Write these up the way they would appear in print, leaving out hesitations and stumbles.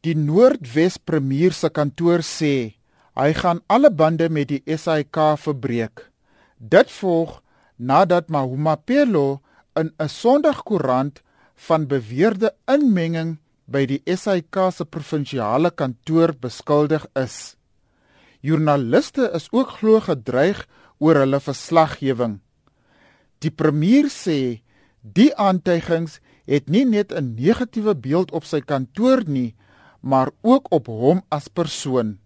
Die Noordwes Premier se kantoor sê, hy gaan alle bande met die SAIK verbreek. Dit volg nadat Mahumapelo in 'n Sondagkoerant van beweerde inmenging by die SAIK se provinsiale kantoor beskuldig is. Joernaliste is ook glo gedreig oor hulle verslaggewing. Die premier sê, die aantuigings het nie net 'n negatiewe beeld op sy kantoor nie, maar ook op hom as persoon.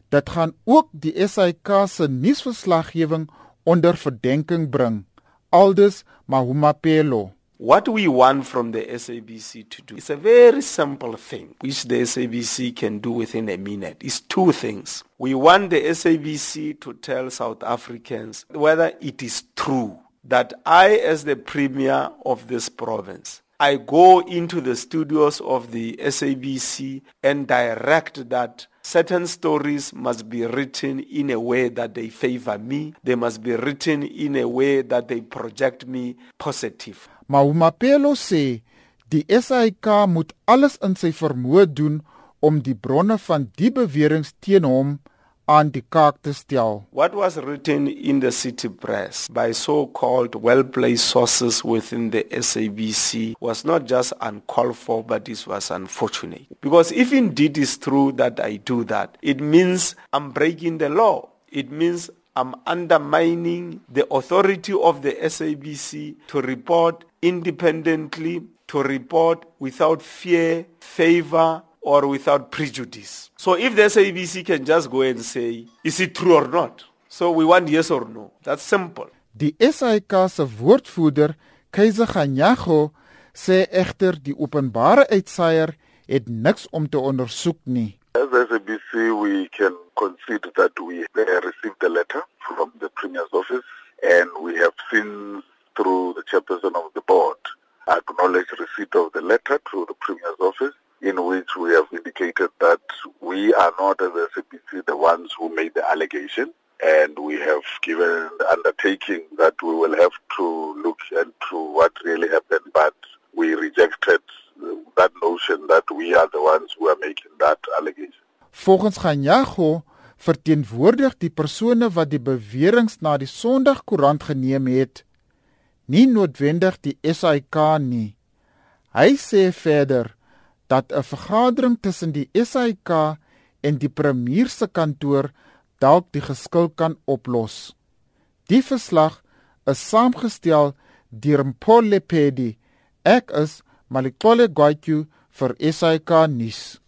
Dit gaan ook die SAIK se nuusverslaggewing onder verdenking bring, aldus Mahumapelo. What we want from the SABC to do is a very simple thing, which the SABC can do within a minute. It's two things. We want the SABC to tell South Africans whether it is true that I, as the premier of this province, I go into the studios of the SABC and direct that certain stories must be written in a way that they favor me. They must be written in a way that they project me positive. Mahumapelo sê, die SAIK moet alles in sy vermoë doen om die bronne van die beweringe teen hom aan die kaak te stel. What was written in the city press by so-called well-placed sources within the SABC was not just uncalled for, but it was unfortunate. Because if indeed it's true that I do that, it means I'm breaking the law. It means I'm undermining the authority of the SABC to report independently, to report without fear, favor, or without prejudice. So if the SABC can just go and say, is it true or not? So we want yes or no. That's simple. Die SAIK se woordvoerder, Keizer Ganyago, sê egter die openbare uitsaier het niks om te ondersoek nie. As SABC, we can concede that we received a letter from the Premier's office, and we have seen through the chairperson of the board acknowledge receipt of the letter to the Premier's office, in which we have indicated that we are not, as SABC, the ones who made the allegation, and we have given the undertaking that we will have to look into what really happened, but we rejected that notion that we are the ones who are making that allegation. Volgens Ganyago verteenwoordig die persone wat die beweringe na die Sondagkoerant geneem het, nie noodwendig die SAIK nie. Hy sê verder dat 'n vergadering tussen die SAIK en die premier se kantoor dalk die geskil kan oplos. Die verslag is saamgestel deur Mpho Lepedi. Ek is Malikole Gwatyu vir SAIK nuus.